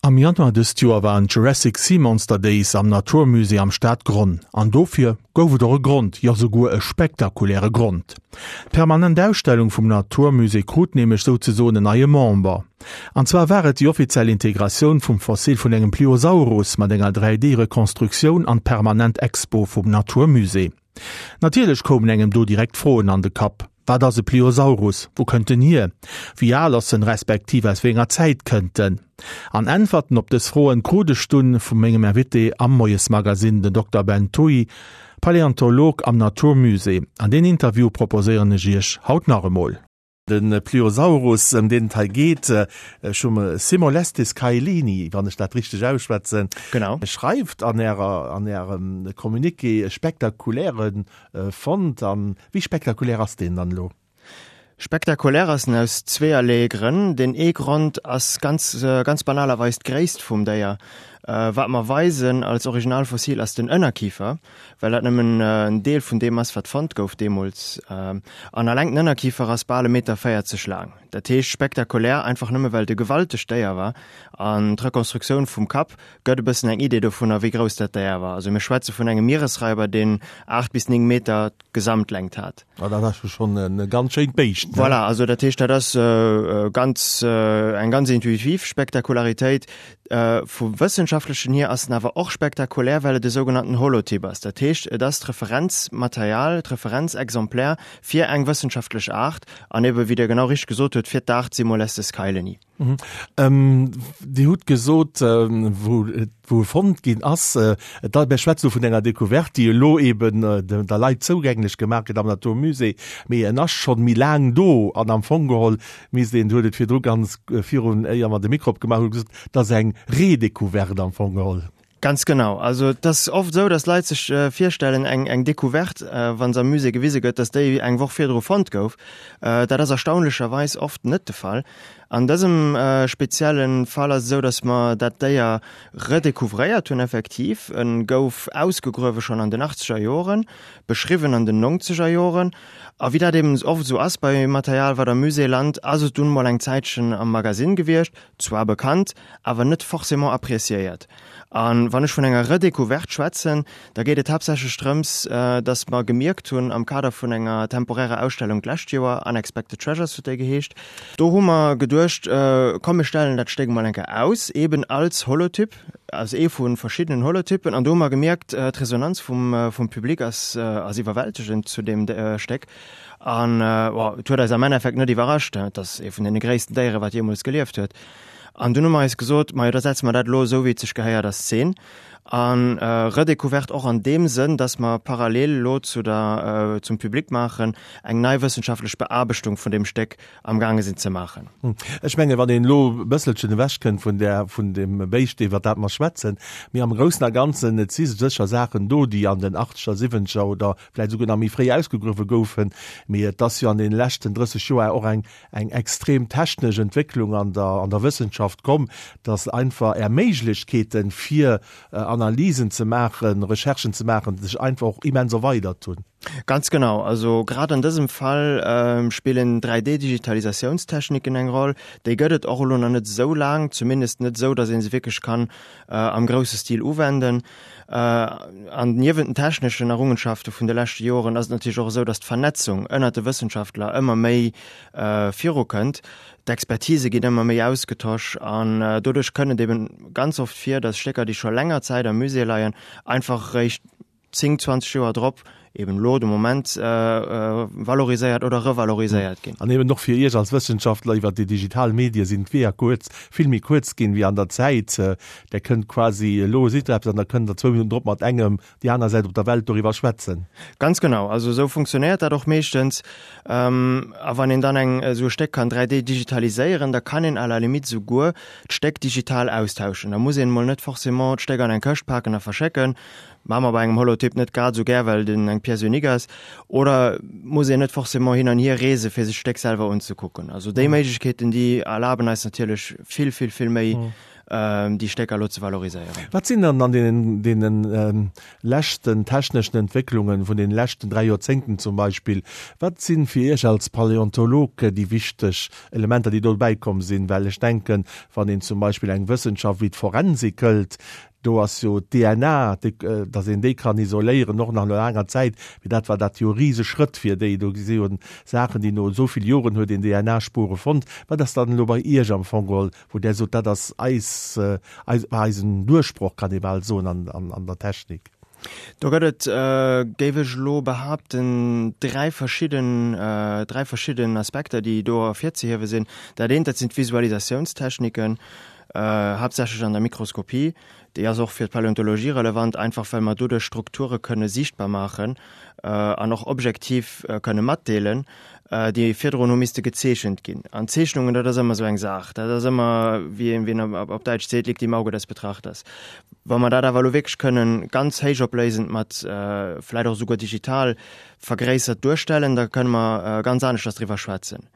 Am Januar dëst Joer waren d'Jurassic Sea Monster Days am Natur Musée am Stadgronn. An dofir gouf et och e Grond, jo souguer e spektakuläre Grond. D'permanent Ausstellung vum Natur Musée krut nämlech souzesoen en neie Member. An zwar war et déi offiziell Integratioun vum Fossil vun engem Pliosaurus mat enger 3D-Rekonstruktioun an d'permanent Expo vum Natur Musée. Natierlech koumen engem do direkt Froen an de Kapp, Wat ass e Pliosaurus? Wou kënnt en hier? Wéi al ass en, respektiv aus wéi enger Zäit kënnt en? An Äntwerten op dës Froen krut ech dunn vu mengem Invité am Moiesmagazine, den Dokter Ben Thuy, Paläontolog am Natur Musée. An deen Interview proposéieren ech iech haut nach emol. De Pliosaurus, ëm deen et hei geet, ech hu Cimolestes caelini, wann ech dat richteg ausschwätzen, Genau. schreift an Ärer, an Ärem Communiqué, e spektakuläre Fond. A wéi spektakulär ass deen dann elo? Spektakulär ass en aus zweeërlee Grënn. Deen ee Grond ass ganz, ganz banalerweis d'Gréisst vum Déier. Wat mer weisen als Originalfossil ass den Ënnerkifer. well dat nëmmen en Deel vun deem ass, wat fonnt gouf deemools. An alleng den Ënnerkifer ass bal e Meter 40 laang. Dat heescht spektakulär, einfach nëmme well et e gewaltegt Déier war. An d'Rekonstruktioun vum Kapp gëtt e bëssen eng Idee dovunner, wéi grouss dat Déier war. Also mir schwätze vun engem Mieresraiber, deen 8 bis 9 Meter Gesamtlängt hat. Ah, dat ass jo schonn e ganz schéint Béischt, ne? Voilà, also dat heescht, dat ass ganz, eng ganz intuitiv Spektakularitéit. Vum Wëssenschaftlechen hier ass en awer och spektakulär, well et e sougenannten Holotyp ass. Dat heescht, et ass d'Referenzmaterial, d'Referenzexemplär fir eng wëssenschaftlech Aart an ebe, wéi Der genau richteg gesot hutt, fir d'Aart Simolestes kaeleni. Dir hutt gesot, wou wou e fonnt ginn ass, et mir schwätzen elo vun enger Decouverte, déi elo eben der Leit zougänglech gemaach gëtt am Natur Musée, mee en ass schonn méi laang do an am Fong geholl misst een, Dir hutt et virdru ganz virun, éier mer de Mikro opgemaach hunn, gesot, et ass eng Redécouverte am Fong geholl. Ganz genau. Also et ass oft esou, datt Leit sech virstellen, eng eng Decouverte, wa se am Musée gewise gëtt, datt déi eng Woch virdru fonnt gouf. Dat ass erstaunlecherweis oft net de Fall. An dësem spezielle Fall ass et esou, datt mer dat Déier redécouvréiert hunn effektiv. E gouf ausgegruewe schonn an den achtzeger Joren, beschriwwen an den nongzeger Joren. A wéi dat eben oft esou ass bei Material, wat am Musée lant, ass et dunn mol eng Zäitchen am Magasinn gewiescht, zwar bekannt, awer net forcément appréciéiert. A wann ech vun enger Redécouverte schwätzen, da geet et haaptsächlech drëms, dass mer gemierkt hunn am Kader vun enger temporärer Ausstellung d'lescht Joer, Unexpected Treasures huet déi geheescht, do hu mer geduecht, komm mir stellen dat Stéck emol eng Kéier aus, eben als Holotyp, als ee vu verschiddenen Holotypen. An do hu mer gemierkt, d'Resonanz vum Public ass iwwerwältegend zu deem Stéck. An bon, et huet eis am Endeffekt net iwwerrascht, et ass ee vun deene gréissten Déiere wat jeemools gelieft huet. An dunn hu mer eis gesot, majo da setze mer dat elo esou wéi et sech gehéiert a Szen. An Redécouverte och an deem Sënn, datt mer parallel elo zu der, zum Public maachen, eng nei wëssenschaftlech Beaarbechtung vun deem Stéck am gaange sinn ze maachen. Ech menge wann een elo e bësselchen ewech kënnt vun där, vun deem Béischt iwwer dat mer schwätzen, mee am Groussen a Ganzen, et si sécher Saachen do, déi an den Achtzeger, Siwwenzeger oder vläicht esouguer nach méi fréi ausgegruewe goufen, mee et ass jo an deene leschten 30 Joer och eng, eng extrem technesch Entwécklung an der, an der Wëssenschaft komm, dass einfach Är Méiglechkeeten, fir Analysen ze maachen, Recherchen ze maachen, sech einfach och immens erweidert hunn. Ganz genau. Also grad an dësem Fall spillen 3D-Digitalisatiounstechniken eng Roll. Déi gëtt et och elo nach net esou laang, zumindest net esou, dass ee se wierklech kann am grousse Stil uwenden. An niewent den techneschen Errungenschafte vun de leschte Joren ass et natierlech och esou, datt d'Vernetzung ënnert de Wëssenschaftler ëmmer méi virukënnt. D'Expertise ginn ëmmer méi ausgetosch an doduerch kënnt et eben ganz oft vir, datt Stécker, déi scho länger Zäit am Musée leien, einfach eréischt 10, 20 Joer drop, eben elo de Moment, valoriséiert oder revaloriséiert ginn. An eben och fir Iech als Wëssenschaftler, iwwer déi digital Medie sinn d'Weeër kuerz, vill méi kuerz ginn wéi an der Zäit. Der kënnt quasi, elo sidd Der eppes an da kënnt Der zwou Minutten drop mat engem déi aner Säit op der Welt doriwwer schwätzen. Ganz genau, also esou funktionéiert dat och meeschtens. A wann een dann eng esou e Stéck kann 3D digitaliséieren, da kann een à la limite esouguer d'Stéck digital austauschen. Da muss een emol net forcément d'Stéck an eng Këscht paken a verschécken, Maache mer bei engem Holotyp net grad esou gär, well den eng Pièce unique ass. Oder muss een net forcément hin an hier reese fir sech d'Stéck selwer unzekucken. Also déi Méiglechkeeten, déi erlaben eis natierlech vill, vill, vill méi. déi Stécker elo ze valoriséieren. Wat sinn dann an deenen, deenen leschten techneschen Entwécklungen vun den leschten 3 Joerzéngten zum Beispill, wat sinn fir Iech als Paläontolog déi wichteg Elementer, déi do bäikomm sinn? Well ech denken, wann een zum Beispill eng Wëssenschaft wéi d'Forensik hëlt, do ass jo d'DNA, datt een déi kann isoléieren, och nach no laanger Zäit, mee dat war dat jo e Riseschrëtt fir déi. Do si jo Saachen, déi no esou vill Joren huet een DNA-Spure fonnt. Wat ass dann elo bei Iech am Fong geholl, wou Der sot, dat ass eis, eis, war eisen Duerchbroch, kann ee bal soen, an, an, an der Technik? Do gëtt et, géif ech elo behaapten, dräi verschidden, dräi verschidden Aspekter, déi do ervirzehiewe sinn. Dat eent, dat sinn d'Visualisatiounstechniken, haaptsächlech an der Mikroskopie. Déi ass och fir d'Paläontologie relevant, einfach well mer doduerch Strukture kënne siichtbar maachen an och objektiv kënne matdeelen, déi virdrun hu misste gezeechent ginn. An Zeechnungen, dat ass ëmmer esou eng Saach. Dat ass ëmmer, wéi een, wéi een op Däitsch seet, liegt im Auge des Betrachters. Wa mer dat awer elo wierklech kënnen ganz héichopléisend mat vläicht och esouguer digital vergréissert duerstellen, da kënne mer ganz aneschters driwwer schwätzen.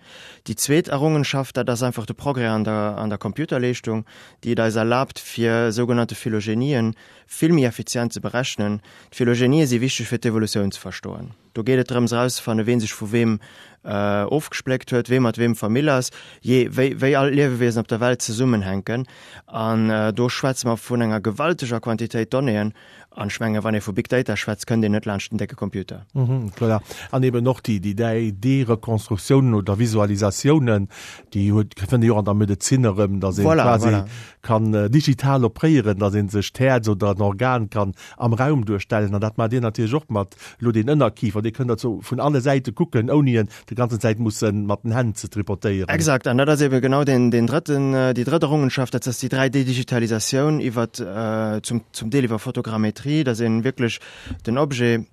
Déi zweet Errungenschaft, dat ass einfach de Progrès an der, an der Computerleeschtung, déi et eis erlaabt, fir sougenannte Phylogenien vill méi effizient ze berechnen. D'Phylogenië si wichteg fir d'Evolutioun ze verstoen. Do geet et drëms erauszefannen, ween sech vu weem ofgespléckt huet, wee mat weem Famill ass, jee wéi, wéi all d'Liewewiesen op der Welt zesummenhänken. An do schwätze mer vun enger gewalteger Quantitéit Donnéeën. An ech menge wann ee vu Big Data schwätzt, kënnt een net laanscht den décke Computer. Voilà. An eben och déi, déi 3D-Rekonstruktiounen oder Visualisatiounen, déi huet, fënnt ee jo och an der Medezin erëm, datt ee quasi kann digital opréieren, datt ee sech d'Häerz oder en Organ kann am Raum duerstellen. An dat maacht Dir natierlech och mat elo deen Ënnerkifer, dee kënnt Der zo vun alle Säite kucken, ouni en déi ganzen Zäit musse mat den Hänn ze tripotéieren. Exakt, an dat ass eben genau deen, deen drëtten, déi drëtt Errungenschaft, dat ass déi 3D-Digitalisatioun iwwer, zum, zum Deel iwwer Fotogrammetrie, dass een wierklech den Objet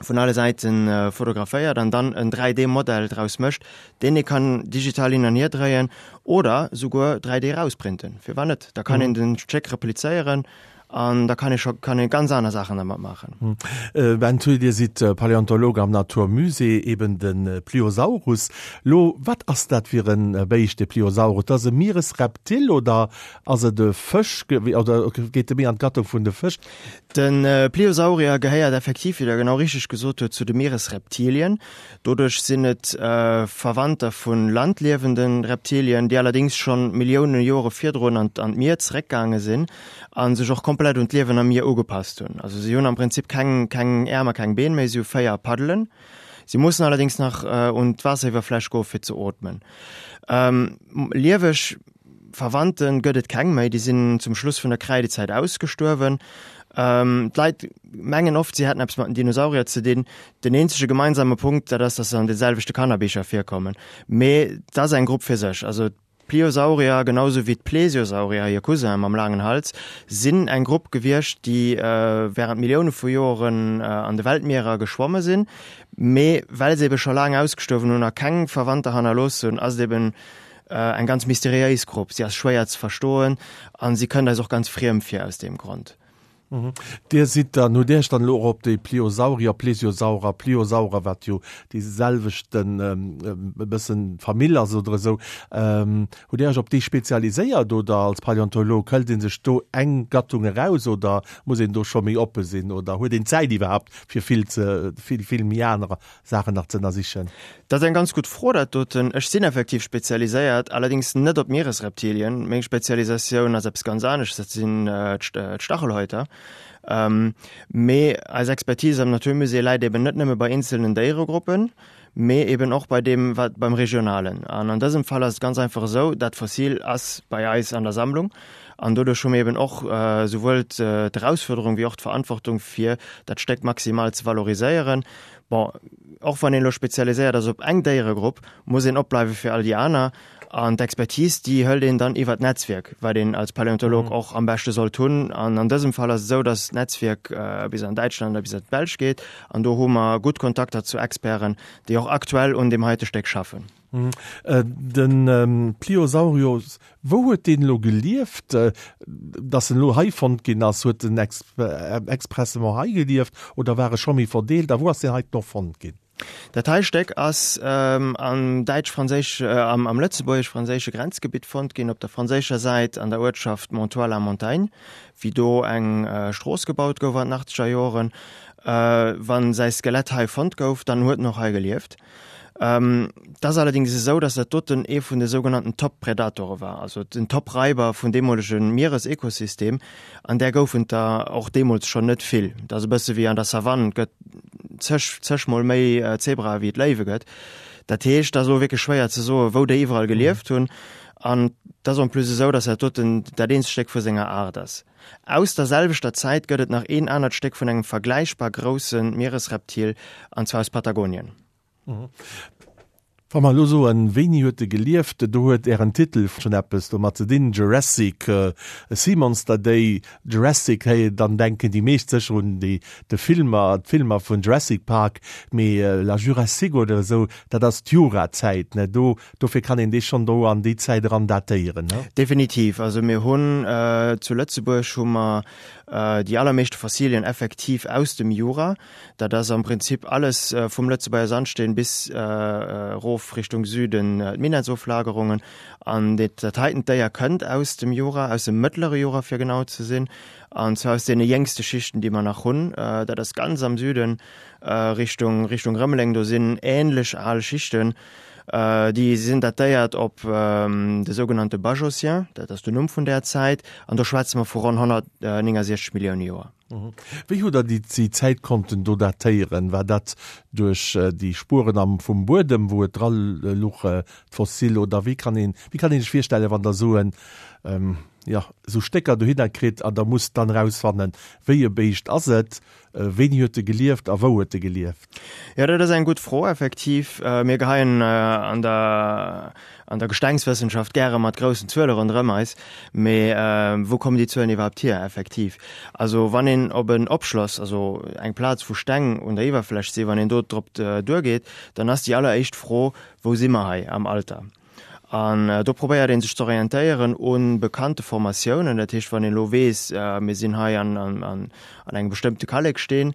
vun alle Säiten fotograféiert an dann en 3D-Modell draus mécht, deen ee kann digital hin an hier dréien oder souguer 3D erausprinten. Firwat net? Da kann een den Stéck replizéieren An da kann ee scho kann ee ganz aner Saachen dermat maachen. Ben Thuy, Dir sidd Paläontolog am Natur Musée, eben de Pliosaurus. Lo, wat ass dat fir e Béischt, de Pliosaurus? Dat ass e Mieresreptil oder ass et e Fësch oder geet e méi an d'Gattung vun de Fësch? De Pliosaurier gehéiert effektiv, wéi Der genau richteg gesot hutt, zu de Mieresreptilien. Doduerch sinn et Verwandter vu landliewende Reptilien, déi allerdéngs schonn Millioune Jore virdrun an d'Mier zeréckgaange sinn. a sech och komplett un d'Liewen am Mier ugepasst hunn. Also si hunn am Prinzip keng, keng Äerm a keng Been méi, si hu 4 Paddelen. Si mussen allerdéngs nach un d'Waasseriwwerfläch goe fir ze ootmen. Lieweg Verwandte gëtt et keng méi, déi sinn zum Schluss vun der Kräidezäit ausgestuerwen. D'Leit mengen oft, si hätten eppes mat den Dinosaurier ze dinn. Den eenzege gemeinsame Punkt, dat ass, datt se an de selwechte Kannerbicher virkommen. Mee dat ass eng Grupp fir sech. Also D'Pliosaurier, genau sou wéi d'Plesiosaurier, hir Cousinen mam laangen Hals, sinn eng Grupp gewiescht, déi wärend Millioune vu Joren an de Weltmierer geschwomme sinn. Mee well se ebe scho laang ausgestuerwen hunn a keng Verwandter hannerlooss hunn, ass et eben eng ganz mysteriéis Grupp. Si ass schwéier ze verstoen a si kënnt eis och ganz friem vir aus deem Grond. Dir sidd dann, hutt Dir Iech dann elo och op déi Pliosaurier, Plesiosaurer, Pliosaurer, wat jo déi selwechten e bëssen Famill ass oder esou, hutt Dir Iech op déi spezialiséiert oder als Paläontolog hëlt ee sech do eng Gattung eraus oder muss een do scho méi oppe sinn oder huet een d'Zäit iwwerhaapt fir vill ze vill vill méi aner Saachen nach ze ënnersichen? Dat ass eng ganz gutt Fro, dat doten. Ech sinn effektiv spezialiséiert, allerdéngs net op Mieresreptilien. Meng Spezialisatioun ass eppes ganz anescht, dat sinn d'Stachelhäuter. Mee eis Expertise am Naturmusée läit eben net nëmme bei eenzelnen Déieregruppen, mee eben och bei deem, wat beim Regionalen. An an dësem Fall ass et ganz einfach esou, dat Fossil ass bei eis an der Sammlung an doduerch hu mir eben och souwuel d'Erausfuerderung wéi och d'Verantwortung, fir dat Stéck maximal ze valoriséieren. Bon, och wann een elo spezialiséiert ass op eng Déieregrupp, muss een opbleiwe fir all déi aner. An d'Expertise, déi hëlt een dann iwwer d'Netzwierk, wat een als Paläontolog och am beschte sollt hunn. An an dësem Fall ass et esou, datt d'Netzwierk bis an Däitschland a bis an d'Belsch geet. An do hu mer gutt Kontakter zu Experten, déi och aktuell un deem heite Stéck schaffen. De Pliosaurios, wou huet deen elo gelieft, dass en elo hei fonnt ginn ass? Huet en expressement hei gelieft oder war e scho méi verdeelt a wou ass deen heiten och fonnt ginn? Dat hei Stéck ass am däitsch-franséisch, am lëtzebuergesch-franséische Grenzgebitt fonnt ginn, op der franséischer Säit an der Uertschaft Montoir-la-Montagne, wéi do eng Strooss gebaut gouf an den achtzeger Joren. Wa säi Skelett hei fonnt gouf, dann huet en och hei gelieft. Et ass allerdéngs esou, datt dat doten ee vun de sougenannten Top-Predatore war, also den Top-Raiber vun deemolege Mieresekosystem, an där goufen et der och deemools schonn net vill. Et ass e bësse wéi an der Savanne, et gëtt zeg, zeg mol méi Zebrae wéi et Léiwe gëtt. Dat heescht, et ass elo wierklech schwéier ze soen, wou déi iwwerall gelieft hunn. An et ass en plus esou, datt dat doten dat eenzegt Stéck vu senger Aart ass. Aus der selwechter Zäit gëtt et nach een anert Stéck vun engem vergläichbar grousse Mieresreptil, an zwar aus Patagonien. Wa mer elo soen, wéini huet e gelieft, do huet Ären Titel schonn eppes domat ze dinn, Jurassic Sea Monster Day, Jurassic, hey, dann denken déi meescht sécher un déi de Filmer, d'Filmer vun Jurassic Park, mee la Jurassique oder esou, dat ass d'Jurazäit, ne? Do Dofir kann een dee schonn do an déi Zäit eran datéieren, ne? Definitiv. Also mir hunn zu Lëtzebuerg hu mer déi allermeeschte Fossilien effektiv aus dem Jura. Dat ass am Prinzip alles vum Lëtzebuerger Sandsteen bis erof Richtung Süden d'Minettsoflagerungen. An dat heiten Déier kënnt aus dem Jura, aus dem mëttlere Jura fir genau ze sinn, an zwar aus deene jéngste Schichten, déi mer nach hunn. Dat ass ganz am Süden Richtung Richtung Rëmeleng, do sinn änlech al Schichten. Déi sinn datéiert op de sougenannte Bajocien, dat ass den Numm vun där Zäit, an do schwätze mer vu ronn 169 Millioune Joer. Wéi hutt Der déi Zäit konnten do datéieren? War dat duerch déi Spueren am vum Buedem, wou et dra luch, d'Fossil, oder wéi kann een, wéi kann een sech virstellen, wann Der esou en, jo, esou Stécker dohinner kritt an Der musst dann erausfannen, wéi e Béischt ass et? Wéini huet e gelieft a wou huet e gelieft? Jo, dat ass eng gutt Fro, effektiv. Mir geheien an der, an der Gestengswëssenschaft gäre mat groussen Zuele ronderëm eis. Mee wou kommen déi Zuelen iwwerhaapt hier, effektiv? Also wann een op en Opschloss, also eng Plaz wou Steng un der Iwwerfläch sinn, wann een do drop duergeet, dann ass déi alleréischt Fro, Wou si mer hei am Alter? An do probéiert ee sech z'orientéieren u bekannte Formatiounen. Dat heescht, wann een elo weess, mir sinn hei an engem bestëmmte Kalleksteen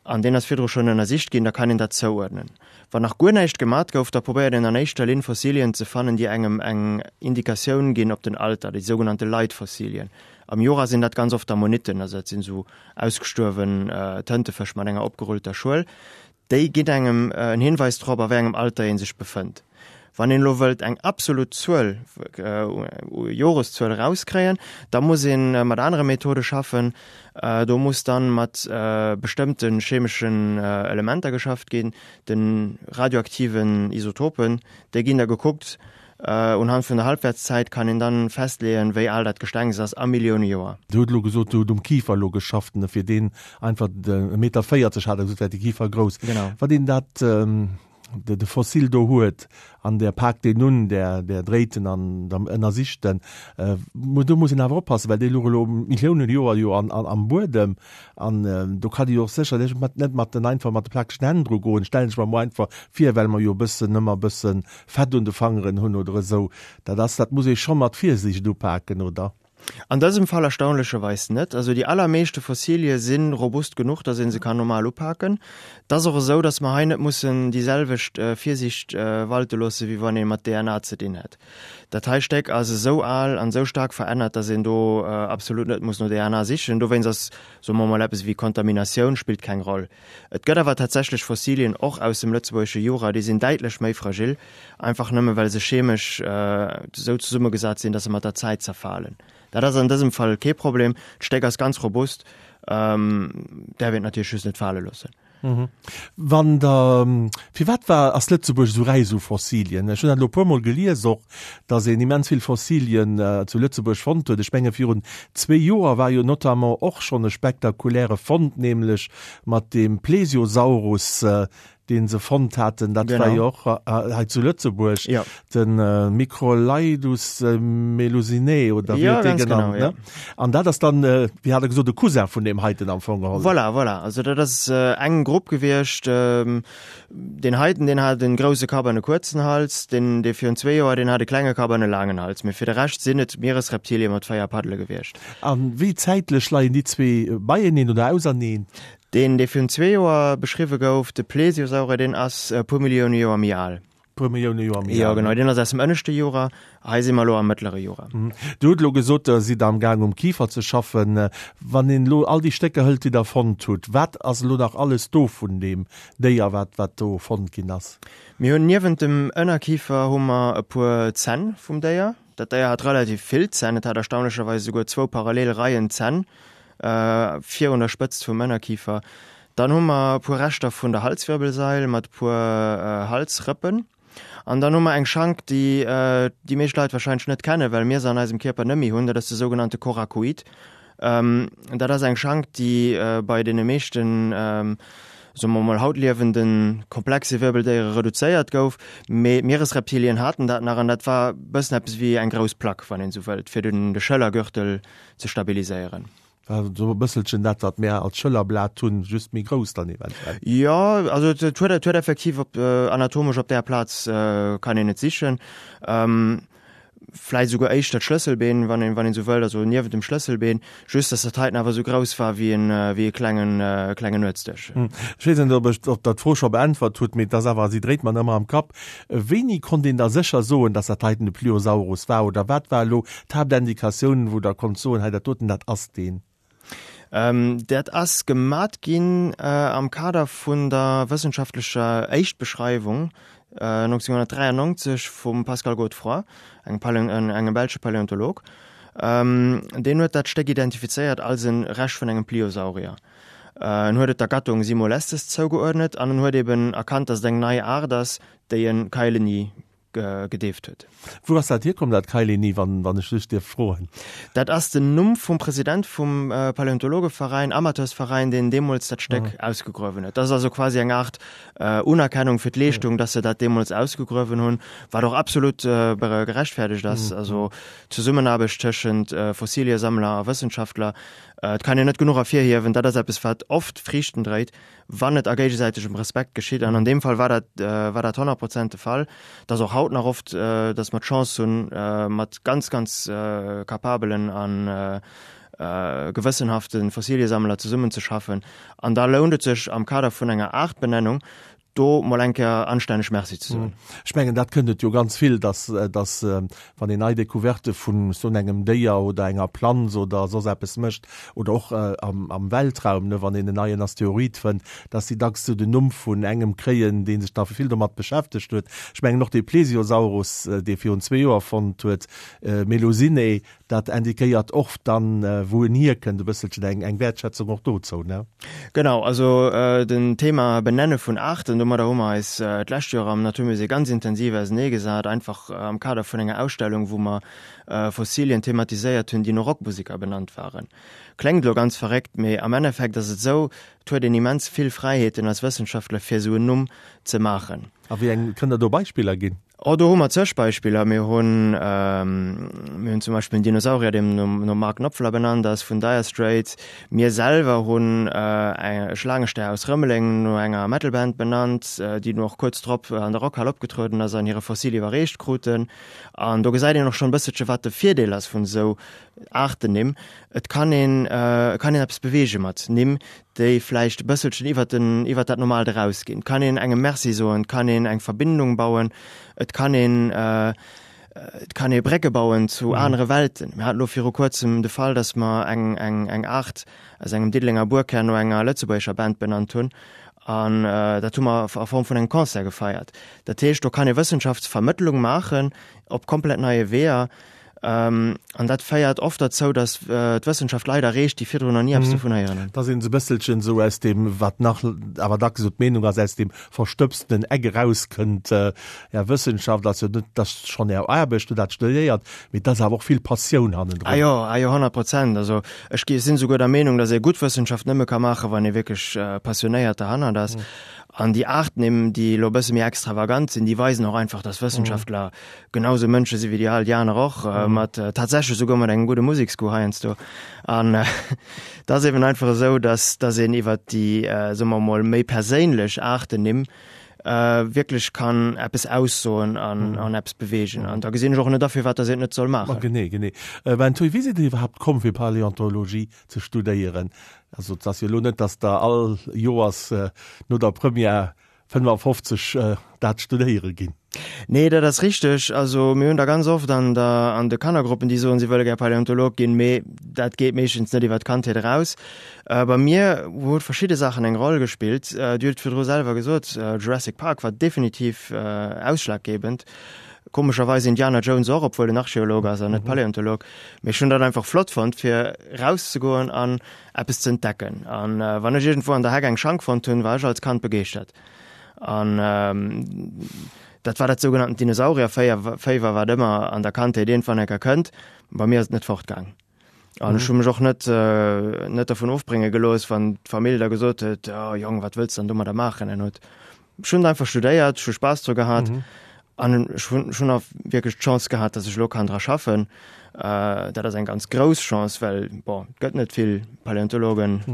an deen ass virdru schonn ënnersicht ginn, da kann een dat zouuerdnen. Wann nach guer näischt gemat gouf, da probéiert een an éischter Linn Fossilien ze fannen, déi engem eng Indikatioun ginn op den Alter, déi sougenannte Leitfossilien. Am Jura sinn dat ganz oft Ammonitten, also dat sinn esou ausgestuerwen Tëntefësch mat enger opgerullter Schuel. Déi ginn engem en Hinweis drop, a wéi engem Alter ee sech befënnt. Wann een elo wëllt eng absolut Zuel, Joreszuel erauskréien, da muss ee mat anere Methode schaffen. Do muss dann mat bestëmmte chemeschen Elementer geschafft ginn, de radioaktiven Isotopen. Déi ginn da gekuckt. Unhand vun der Halbwertszäit kann een dann festleeën, wéi al dat Gestengs ass, a Millioune Joer. Dir hutt elo gesot, Dir hutt um Kifer elo geschafft, ne, fir deen einfach e Meter 40 hat Der gesot, wär de Kifer grouss. Genau. Wann een dat, de, de Fossil do huet an Der paakt deen un, Der, Der dréit en an der ënnersicht en, do muss een awer oppassen, well dee luch elo Milliounen Joer jo an, an, am Buedem an do kann ee jo och sécherlech mat, net mat den einfach mat de plakegen Hänn dru goen, stellen ech mer emol einfach vir, well mer jo e bëssen ëmmer e bëssen Fett un de Fangeren hunn oder esou, dat ass, dat muss ee scho mat Virsiicht upaken, oder? An dësem Fall erstaunlecherweis net. Also déi allermeeschte Fossilie si robust genuch, datt ee se kann normal upaken. Et ass och esou, datt mer hei net mussen déi selwecht Virsiicht walte loosse wéi wann ee mat DNA ze dinn hätt. Dat hei Stéck ass esou al an esou staark verännert, datt een do absolut net muss no DNA sichen. Dowéinst ass, soe mer mol, eppes ewéi Kontaminatioun spillt keng Roll. Et gëtt awer tatsächlech Fossilien, och aus dem lëtzebuergesche Jura, déi sinn däitlech méi fragil, einfach nëmme well se chemesch esou zesummegesat sinn, datt se mat der Zäit zerfalen. Dat ass an dësem Fall kee Problem, d'Stéck ass ganz robust, däerf een et natierlech just net fale loossen. Wann Der, firwat war, ass Lëtzebuerg esou räich u Fossilien? Ech hunn dat elo e puermol gelies och, datt een immens vill Fossilien zu Lëtzebuerg fonnt huet. Ech menge virun zwee Joer war jo notamment och schonn e spektakuläre Fond, nämlech mat deem Plesiosaurus, dee se fonnt haten. Dat war jo och hei zu Lëtzebuerg, de Microlaidus melusinae oder wéi huet dee genannt, ne? An dat ass dann, wéi hat Der gesot, e Cousin vun deem heiten am Fong geholl. Voilà, voilà. Also dat ass eng Grupp gewiescht. Deen heiten, deen hat en grousse Kapp an e kuerzen Hals, deen, dee virun zwee Joer, deen hat e klenge Kapp an e laangen Hals. Mee fir de Rescht sinn et Mieresreptilie mat 4 Paddele gewiescht. A wéi zäitlech leien déi zwee beieneen oder auserneen? Deen, dee virun zwee Joer beschriwwe gouf, de Plesiosaurier, deen ass e puer Millioune Joer méi al. Puer Millioune Joer méi al. Jo, genau, deen ass aus dem ënneschte Jura. Hei si mer elo am mëttlere Jura. Dir hutt elo gesot, Der sidd am Gaang um Kifer ze schaffen. Wann een elo all déi Stécker hëlt, déi Der fonnt hutt, wat ass elo nach alles do vun deem Déier, wat, wat do fonnt ginn ass? Mir hunn niewent dem Ënnerkifer hu mer e puer Zänn vum Déier. Dat Déier hat relativ vill Zänn, et hat erstaunlecherweis esouguer zwou parallel Reien Zänn virun der Spëtzt vum Ënnerkifer. Dann hu mer e puer Reschter vun der Halswirbelsail mat e puer Halsrëppen. An dann hu mer eng Schank, déi déi meescht Leit warscheinlech net kennen, well mir se an eisem Kierper net méi hunn, dat ass de sougenannte Coracoid. Dat ass eng Schank, déi bei deene meeschten, soe mer mol, haut liewende komplexe Wirbeldéiere reduzéiert gouf. Mee d'Mieresreptilien haten dat nach an dat war e bëssen eppes wéi eng grouss Plack, wann een esou wëllt, fir den de Schëllergürtel ze stabiliséieren. War esou e bësselchen dat, wat mär als Schëllerblat hunn, just méi grouss dann eventuell. Jo, also et huet, et huet effektiv op, anatomesch op där Plaz kann een et sichen. Vläit esouguer éischter d'Schlësselbeen, wann een, wann een esou wëllt, also niewent dem Schlësselbeen, just dass dat heiten awer esou grouss war wéi en, wéi e klengen, klengen Nuetsdësch. Ech weess net, ob ech, ob Der d'Fro scho beäntwert hutt, mee et ass awer, si dréit mer ëmmer am Kapp. Wéini konnt een da sécher soen, dass dat heiten de Pliosaurus war oder wat war elo d'Haaptindikatioun, wou Der konnt soen, hei dat doten, dat ass deen? Dat ass gemat ginn am Kader vun der wëssenschaftlecher Éischtbeschreiwung 1993 vum Pascal Godefroid, engem engem belsche Paläontolog. Deen huet dat Stéck identifizéiert als e Rescht vun engem Pliosaurier. En huet et der Gattung Simolestes zougeuerdnet an en huet eben erkannt, datt et eng nei Aart ass, déi en Kaeleni gedeeft huet. Wou ass dat hierkomm, dat Kaeleni, wann wann ech lech dierf froen? Dat ass den Numm vum President vum Paläontologeveräin, Amateursveräin, deen deemools dat Stéck ausgegruewen huet. Dat ass also quasi eng Aart Unerkennung fir d'Leeschtung, datt se dat deemools ausgegruewen hunn, wat och absolut gerechtfäerdegt ass. Also d'Zesummenaarbecht tëschent Fossiliesammler a Wëssenschaftler, Et kann een net genuch ervirhiewen, dat ass eppes, wat oft Friichten dréit, wann et a géigesäitegem Respekt geschitt. An an deem Fall war dat, war dat 100 Prozent de Fall. Et ass och haut nach oft, datt mer d'Chance hunn, mat ganz, ganz kapabelen a gewëssenhafte Fossiliesammler zesummenzeschaffen. An da lount et sech am Kader vun enger Aartbenennung, do mol eng Kéier anstänneg Merci ze soen. Ech mengen, dat kënnt et jo ganz vill, dass, dass wann een nei Découverte vun soen engem Déier oder enger Planz oder soss eppes mécht oder och am, am Weltraum, ne, wann een en neien Asteroid fënnt, dass déi dacks sou den Numm vun engem kréien, dee sech da vill domat beschäftegt huet. Ech mengen och dee Plesiosaurus, dee virun zwee Joer fonnt huet, Melusinae, Dat indiquéiert och dann, wou en hierkënnt, e bësselchen eng, eng Wäertschätzung och dozou, ne? Genau, also den Thema Benenne vun Aarten, domadder hu mer eis d'lescht Joer am Naturmusée ganz intensiv auseneegesat, einfach am Kader vun enger Ausstellung, wou mer Fossilien thematiséiert hunn, déi no Rockmuseker benannt waren. Kléngt elo ganz verréckt, mee am Endeffekt ass et esou, et huet een immens vill Fräiheeten als Wëssenschaftler, fir esou en Numm ze maachen. A wéi eng, kënnt Der do Beispiller ginn? Oh, do hu mer zeg Beispiller. Mir hunn, mir hunn zum Beispill en Dinosaurier, deem nom, nom Mark Knopfler benannt ass, vun Dire Straits. Mir selwer hunn e Schlaangestär aus Rëmeleng no enger Metalband benannt, déi dunn och kuerz drop an der Rockhal opgetrueden ass an hire Fossil iwwerreecht kruten. An do gesäit een och schonn e bësselche wat de Virdeel ass vun esou Aartennimm. Et kann een, et kann een eppes beweege mat Nimm, déi vläicht e bësselchen iwwert den, iwwert dat Normaalt erausginn. Et kann een engem Merci soen, et kann een eng Verbindung bauen, et kann een, et kann ee Brécke bauen zu anere Welten. Mir haten elo viru kuerzem de Fall, datt mer eng, eng, eng Aart aus engem Diddelenger Buerkär no enger lëtzebuergescher Band benannt hunn. An dat hu mer a Form vun engem Concert gefeiert. Dat heescht, do kann ee Wëssenschaftsvermëttlung maachen op komplett neie Weeër. An dat féiert oft derzou, datt d'Wëssenschaft Leit erreecht, déi virdrun nach ni eppes dovun héieren hunn. Datt een esou e bësselchen esou aus deem, wat nach awer dacks esou d'Meenung ass, aus deem verstëbstenen Eck erauskënnt. Är Wëssenschaft ass jo net, dat ass schonn Är Aarbecht, hutt dat studéiert, mee et ass awer och vill Passioun hannendrun. Ah jo, ah jo, 100%. Also ech gi sinn esouguer der Meenung, datt ee gutt Wëssenschaft nëmme ka maachen, wann ee wierklech passionéiert derhannert ass. An déi Aartnimm, déi elo e bësse méi extravagant sinn, déi weisen och einfach, datt Wëssenschaftler Genau sou Mënsche si wéi déi all déi aner och, mat tatsächlech souguer mat engem gudde Museksgoût heiansdo. An et ass eben einfach esou, dass dass een iwwert déi, soe mer emol, méi perséinlech Aartennimm. wierklech kann eppes aussoen an an eppes beweegen. An da gesinn ech och net a firwat datt een et net soll maachen. Genee, genee. Ben Thuy, wéi sidd Dir iwwerhaapt komm fir Paläontologie ze studéieren? Also et ass jo elo net, datt Der all Joers no der Première 55 dat studéiere ginn. Nee, dat ass richteg. Also mir hunn der ganz oft an der an de Kannergruppen, déi soen, si wëlle gär Paläontolog ginn, mee dat geet meeschtens net iwwer d'Kandheet eraus. Bei mir huet verschidde Saachen eng Roll gespillt. Dir hutt et virdru selwer gesot, Jurassic Park war definitiv ausschlaggebend. Komescherweis Indiana Jones och, obwuel en Archeolog ass an net Paläontolog. Mee ech hunn dat einfach flott fonnt, fir erauszegoen an eppes ze entdecken. An wann ech iergendwou an der Heck eng Schank fonnt hunn, war ech als Kand begeeschtert. An dat war dat sougenannten Dinosaurierféiwer, wat ëmmer an der Kandheet iergendwann eng Kéier kënnt. Bei mir ass et net fortgaang. An ech hu mech och net net dervun ofbrénge gelooss, wann d'Famill da gesot huet, oh Jong, wat wëlls de dann domadder maachen? En huet ech hunn einfach studéiert, ech hu Spaass dru gehat an ech hunn ech hunn och wierklech d'Chance gehat, datt ech elo kann dra schaffen. Dat ass eng ganz grouss Chance, well bon, et gëtt net vill Paläontologen,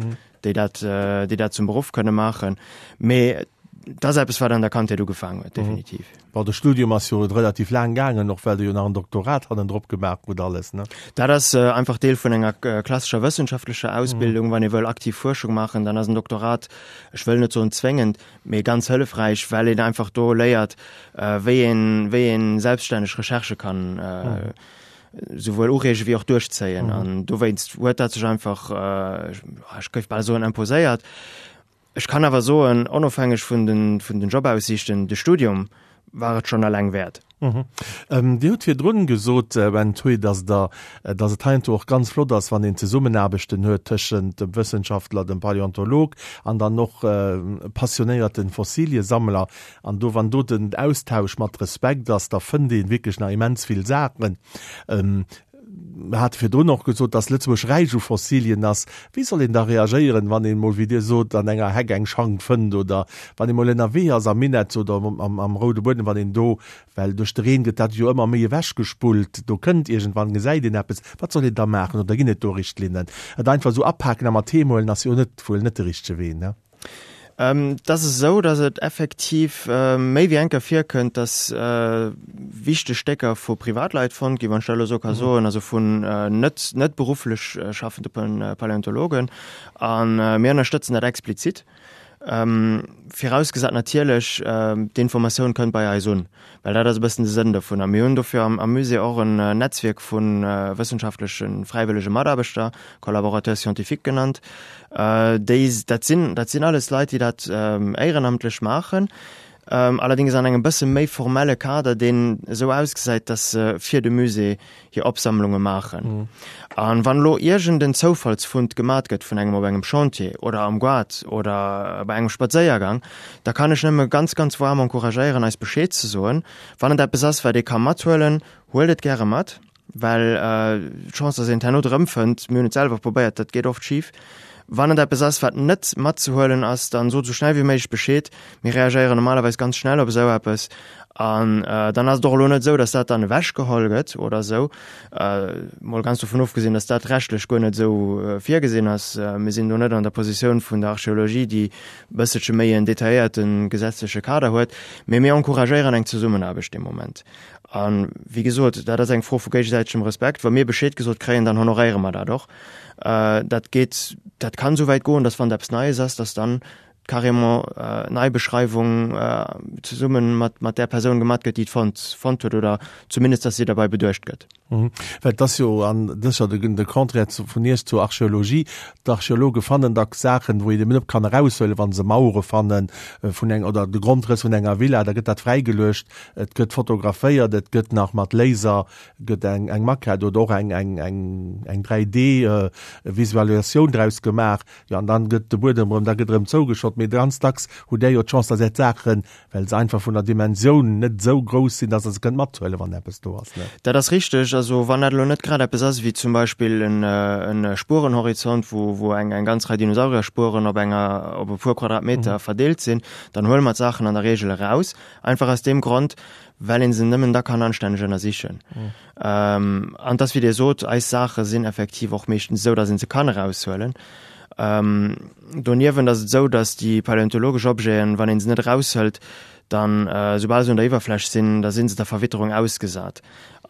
déi dat déi dat zum Beruff kënne maachen. Mee et ass eppes, wat an der Kandheet ugefaangen huet, definitiv. Bon, de Studium ass jo relativ laang gaangen, och well Der jo nach en Doktorat hannendrop gemaach hutt alles, ne? Dat ass einfach Deel vun enger klassescher wëssenschaftlecher Ausbildung. Wann ee wëll aktiv Fuerschung maachen, dann ass en Doktorat, ech wëll net soen zwéngend, mee ganz hëllefräich, well een einfach do léiert, wéi een, wéi een selbststänneg Recherchë kann souwuel ureege wéi och duerchzéien. An dowéinst huet dat sech einfach, ech géif bal soen, imposéiert. Ech kann awer soen, onofhängeg vun den, vun den Jobaussiichten, de Studium war et schonn eleng wäert. Dir hutt virdrun gesot, Ben Thuy, dass Der, dass et heiansdo och ganz flott ass, wann een Zesummenaarbechten huet tëschent dem Wëssenschaftler, dem Paläontolog an dann och passionéierten Fossiliesammler. An do, wann do den Austausch mat Respekt ass, da fënnt ee wierklech nach immens vill Saachen. Mir hate virdrun och gesot, dass Lëtzebuerg räich u Fossilien ass. Wéi soll een da reagéieren, wann een emol, wéi Dir sot, an enger Heck eng Schank fënnt oder wann ee mol ënnerwee ass am Minett oder am Roude Buedem, wann een do, well duerch de Reen gëtt dat jo ëmmer méi ewechgespullt, do kënnt iergendwann, gesäit een eppes. Wat soll een da maachen oder ginn et do Richtlinnen? Et einfach esou apaken a mat heem huelen ass jo net, wuel net de richtege Wee, ne? Et ass esou, datt et effektiv méi wéi eng Kéier virkënnt, datt wichteg Stécker vu Privatleit fonnt ginn, wann ech dat elo esou ka soen, also vun net net berufflech schaffende Paläontologen. A mir ënnerstëtzen dat explizit, virausgesat natierlech, d'Informatioun kënnt bei eis un. Well dat ass e bëssen de Sënn dovunner. Mir hunn dofir am Musée och en Netzwierk vu wëssenschaftleche fräiwëllege Mataarbechter, Collaborateurs scientifiques genannt. Déi, dat sinn, dat sinn alles Leit, déi dat éierenamtlech maachen, allerdéngs an engem bësse méi formelle Kader, deen esou ausgesäit, datt se fir de Musée hir Opsammlunge maachen. An wann elo iergend en Zoufallsfund gemat gëtt vun engem op engem Chantier oder am Goart oder bei engem Spadséiergang, da kann ech nëmme ganz, ganz waarm encouragéieren, eis Bescheed ze soen. Wann et eppes ass, wat ee ka mathuelen, huelt et gäre mat, well d'Chance, dass een et herno erëmfënnt, mir hunn et selwer probéiert, dat geet oft schif. Wann et eppes ass, wat net matzehuelen ass, dann sot esou schnell wéi méiglech Bescheed. Mir reagéieren normalerweis ganz schnell op esou eppes. An dann ass et och elo net esou, datt dat dann ewechgeholl gëtt oder esou. Mol ganz dovun ofgesinn, datt dat rechtlech guer net esou virgesinn ass. Mir sinn do net an der Positioun vun der Archeologie, déi e bësselche méi en detailléierte gesetzleche Kader huet. Mee mir encouragéieren eng Zesummenaarbecht dee Moment. A wéi gesot, dat ass eng Fro vu géigesäitegem Respekt. Wa mir Bescheed gesot kréien, dann honoréiere mer dat och. Dat geet, dat kann esou wäit goen, datt wann et eppes Neies ass, datt dann carrément Neibeschreiwung zesumme mat mat där Persoun gemat gëtt, déi et fonnt fonnt huet oder zumindest, datt si derbei beduecht gëtt. Well et ass jo, an dat ass jo de de Contraire zu vun Iech zur Archeologie, d'Archeologe fannen dacks Saachen, wou een eben net kann eraushuelen, wa se Mauere fannen vun eng oder de Grondrëss vun enger Villa, da gëtt dat fräigeluecht, et gëtt fotograféiert, et gëtt nach mat Laser gëtt eng eng Maquette oder och eng eng eng eng 3D Visualisatioun draus gemaach. Jo, an dann gëtt de Buedem erëm, da gëtt erëm zougeschott. Mee ganz dacks hutt Där jo d'Chance, dass Är d'Saachen, well se einfach vun der Dimensioun net esou grouss sinn, dass Der se kënnt mathuelen, wann eppes do ass, ne? Dat ass richteg. Also wann dat elo net grad eppes ass wéi zum Beispill en e Spurenhorizont, wou wou eng eng ganz Rei Dinosaurierspueren op enger op e puer Quadratmeter verdeelt sinn, dann huele mer d'Saachen an der Reegel eraus. Einfach aus deem Grond, well ee se nëmmen da kann anstänneg ënnersichen. An et ass wéi Dir sot, eis Saache sinn effektiv och meeschtens esou, datt ee se kann eraushuelen. Doniewent ass et esou, datt déi paläontologesch Objeten, wann ee se net eraushëlt, dann, soubal se un der Iwwerfläch sinn, da si se der Verwitterung ausgesat.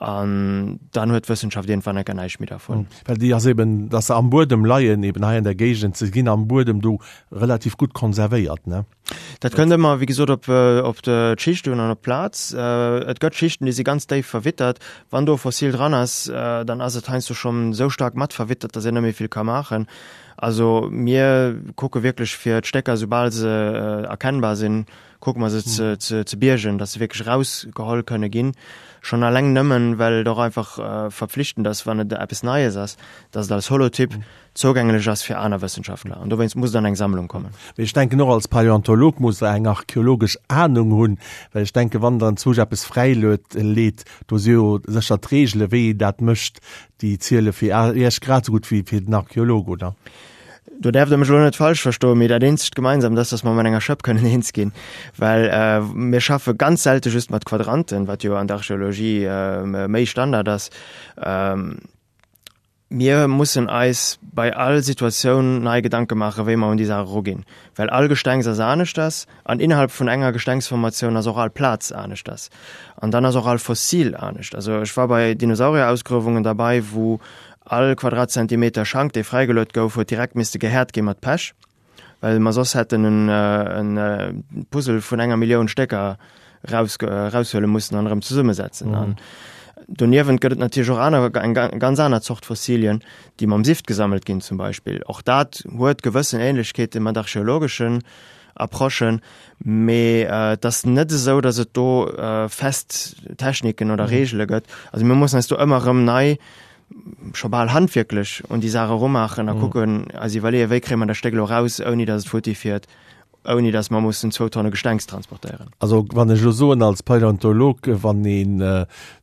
An dann huet d'Wëssenschaft iergendwann enker näischt méi dervun. Well déi ass eben, datt se am Buedem leien, eben hei an der Géigend, se ginn am Buedem do relativ gutt konservéiert, ne? Dat kënnt ëmmer, wéi gesot, op, op d'Schicht un an op d'Plaz. Et gëtt Schichten, déi si ganz déif verwittert. Wann do e Fossil dran ass, dann ass et heiansdo schonn esou staark mat verwittert, datt een net méi vill ka maachen. Also mir kucke wierklech fir d'Stécker, soubal se erkennbar sinn, kucke mer se ze, ze, ze biergen, dass se wierklech erausgeholl kënne ginn. Schonn alleng nëmmen, well et och einfach verpflichtend ass, wann et eppes Neies ass, dass et als Holotyp zougänglech ass fir aner Wëssenschaftler. An dowéinst muss et an eng Sammlung kommen. Mee ech denken och als Paläontolog muss Der eng archäologesch Ahnung hunn, well ech denken, wann Der enzwousch eppes fräiluet, leet, do si jo sécher d'Reegele wéi een dat mécht, déi ziele fir Iech grad esou gutt wéi fir den Archäolog, oder? Do däerft Der mech elo net falsch verstoen, mee dat eenzegt Gemeinsamt ass, dass mer mat enger Schëpp kënnen eens ginn, well mir schaffe ganz selte just mat Quadranten, wat jo an der Archeologie méi Standard ass. Mir mussen eis bei all Situatioun nei Gedanke maachen, wéi mer un déi Saach eruginn, well all Gestengs ass aneschters an innerhalb vun enger Gestengsformatioun ass och all Plaz aneschters an dann ass och all Fossil anescht. Also ech war bei Dinosaurierausgruewungen derbei, wou All Quadratzentimeter Schank, dee fräigeluet gouf, huet direkt misste gehäert gi mat Pech, well mer soss hätten en e Puzzle vun enger Millioun Stécker raus, raushuele mussen an erëm zesummesetzen. An doniewent gëtt et natierlech och aner, eng ganz aner Zort Fossilien, déi mam Sift gesammelt ginn zum Beispill. Och dat huet gewëssen Ähnlechkeete mat archeologeschen Approchen, mee et ass net esou, datt et do fest Techniken oder Reegele gëtt. Also mir mussen eis do ëmmer erëm nei scho bal handwierklech un déi Saach erumaachen a kucken, eis iwwerleeën, wéi kréie mer dat Stéck elo raus, ouni datt et futti fiert, ouni datt mer mussen zwou Tonne Gestengs transportéieren. Also wann ech elo soen als Paläontolog, wann een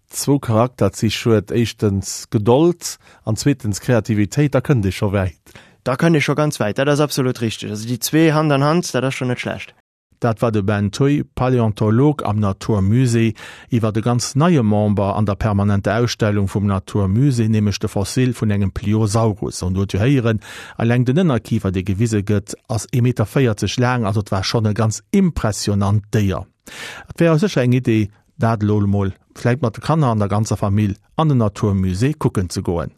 zwou Charakterzich huet, éischtens Gedold an zweetens Kreativitéit, da kënnt ee scho wäit. Da kënnt ee scho ganz wäit, dat ass absolut richteg. Also déi zwee Hand an Hand, dat ass schonn net schlecht. Dat war de Ben Thuy, Paläontolog am 'natur musée', iwwer e ganz neie Member an der permanenter Ausstellung vum 'natur musée', nämlech de Fossil vun engem Pliosaurus. An do huet jo héieren, eleng den Ënnerkifer, dee gewise gëtt, ass ee Meter 40 laang, also et war schonn e ganz impressionant Déier. Et wär jo sécher eng Idee, dat elo emol vläicht mat de Kanner an der ganzer Famill an den 'natur musée' kucken ze goen.